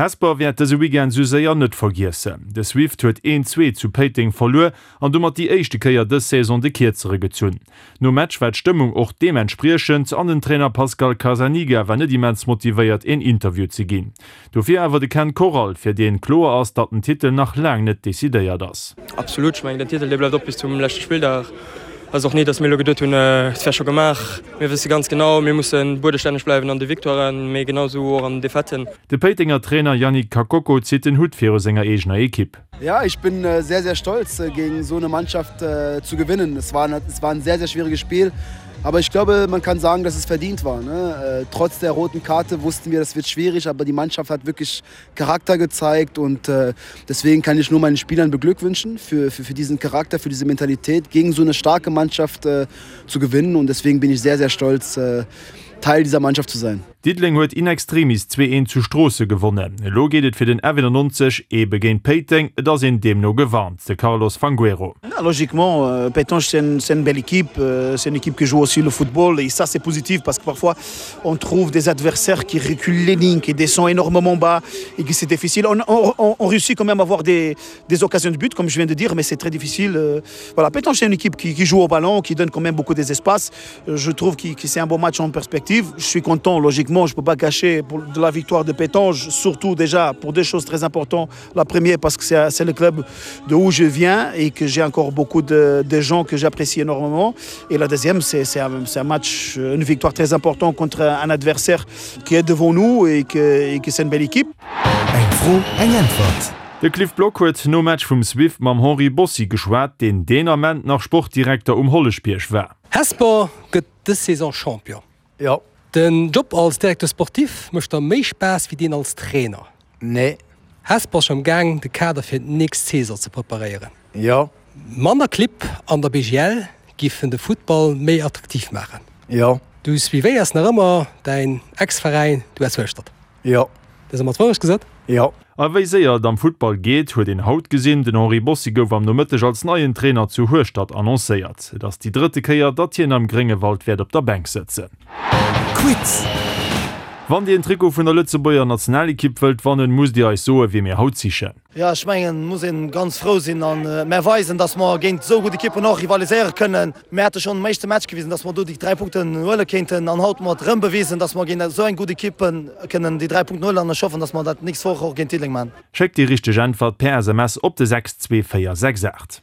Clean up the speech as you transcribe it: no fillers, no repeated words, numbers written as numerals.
Hesper wäert dëse Weekend sou séier net vergiessen. De Swift huet een 2 zu Péiteng verluer an domat déi éischte Kéier dës Saison de Kierzere gezunn. Nom Match war d'Stëmmung och deementspriechend an den Trainer Pascal Carzaniga war net immens motivéiert een Interview ze ginn. Dofir awer de Ken Corral, fir deen kloer ass, datt den Titel nach laang net decidéiert ass. Absolut, ech mengen den Titel dee bleift op bis zum leschte Spilldag. Ass och ni, datt mir elo geduet hunn, et wär scho gemaach. Mir wësse ganz genau, mir musse buedestänneg bleiwen an de Victoiren, mee genau esou och an den Defaiten. De Péitenger Trainer Yannick Kakoko zitt den Hutt viru senger eegener Ekipp. Ja, ich bin sehr, sehr stolz, gegen so eine Mannschaft zu gewinnen. Es war, es war ein sehr, sehr schwieriges Spiel. Aber ich glaube, man kann sagen, dass es verdient war. Ne? Trotz der roten Karte wussten wir, das wird schwierig, aber die Mannschaft hat wirklich Charakter gezeigt und äh, deswegen kann ich nur meinen Spielern beglückwünschen für, für, für diesen Charakter, für diese Mentalität, gegen so eine starke Mannschaft äh, zu gewinnen und deswegen bin ich sehr, sehr stolz, äh, Teil dieser Mannschaft zu sein. Diddeleng huet in extremis 2, 1 zu Stroosse gewonnen. Elo geet et fir den F91 ebe géint Péiteng. Et ass een deemno gewarnt, de Carlos Fangueiro. Logiquement, Pétange c'est une, une belle équipe, c'est une équipe qui joue aussi le football et ça c'est positif parce que parfois on trouve des adversaires qui reculent les lignes, qui descendent énormément bas et que c'est difficile. On, on, on réussit quand même à avoir des, des occasions de but, comme je viens de dire, mais c'est très difficile. Voilà, Pétange c'est une équipe qui, qui joue au ballon, qui donne quand même beaucoup des espaces. Je trouve que, que c'est un bon match en perspective. Je suis content, logiquement, je ne peux pas cacher pour, de la victoire de Pétange, surtout déjà pour deux choses très importantes. La première, parce que c'est le club de où je viens et que j'ai encore beaucoup de, de gens que j'apprécie énormément. Et la deuxième, c'est un, un match, une victoire très importante contre un adversaire qui est devant nous et que, et que c'est une belle équipe. Eng Fro, eng Äntwert. De Cliff Block huet nom Match vum Swift mam Henri Bossi geschwat, deen deen Ament nach Sportdirekter um Holleschbierg war. Hesper gëtt dës Saison Champion. Jo. Den Job als Directeur sportif mécht der méi Spaass wéi deen als Trainer? Nee. Hesper ass scho am Gaang de Kader fir d'nächst Saison ze preparéieren? Jo. Manner Clibb an der BGL giffen de Futtball méi attraktiv maachen? Jo. Du suivéiers nach ëmmer däin Ex-Veräin, d'US Hueschtert? Jo. Dës ëmmer d'Wourecht gesot? Jo. A wéi séier et am Futtball geet, huet een haut gesinn. Den Henri Bossi gouf am Nomëtteg als neien Trainer zu Hueschtert annoncéiert. Et ass déi drëtte Kéier, datt hien am Gréngewald wäert op der Bänk sëtzen. Quiz! Wann Dir en Trikot vun der Lëtzebuerger Nationalekipp wëllt wannen, musst Dir eis soen, wie mir haut sichen. Jo, ech mengen, muss een ganz frou sinn an mär weisen, dass mer géint esou gutt Ekippen och rivaliséiere kënnen. Mär hate schonn am éischte Match gewisen, dass mer do déi 3 Punkten huele kéinten an haut hu mer et erëm bewisen, dass mer géint esou eng gutt Ekipp kënnen déi 3 Punkten huelen an ech hoffen, dass mer dat d'nächst Woch och géint Diddeleng maachen. Schéckt déi richteg Äntwert per SMS op de 62468.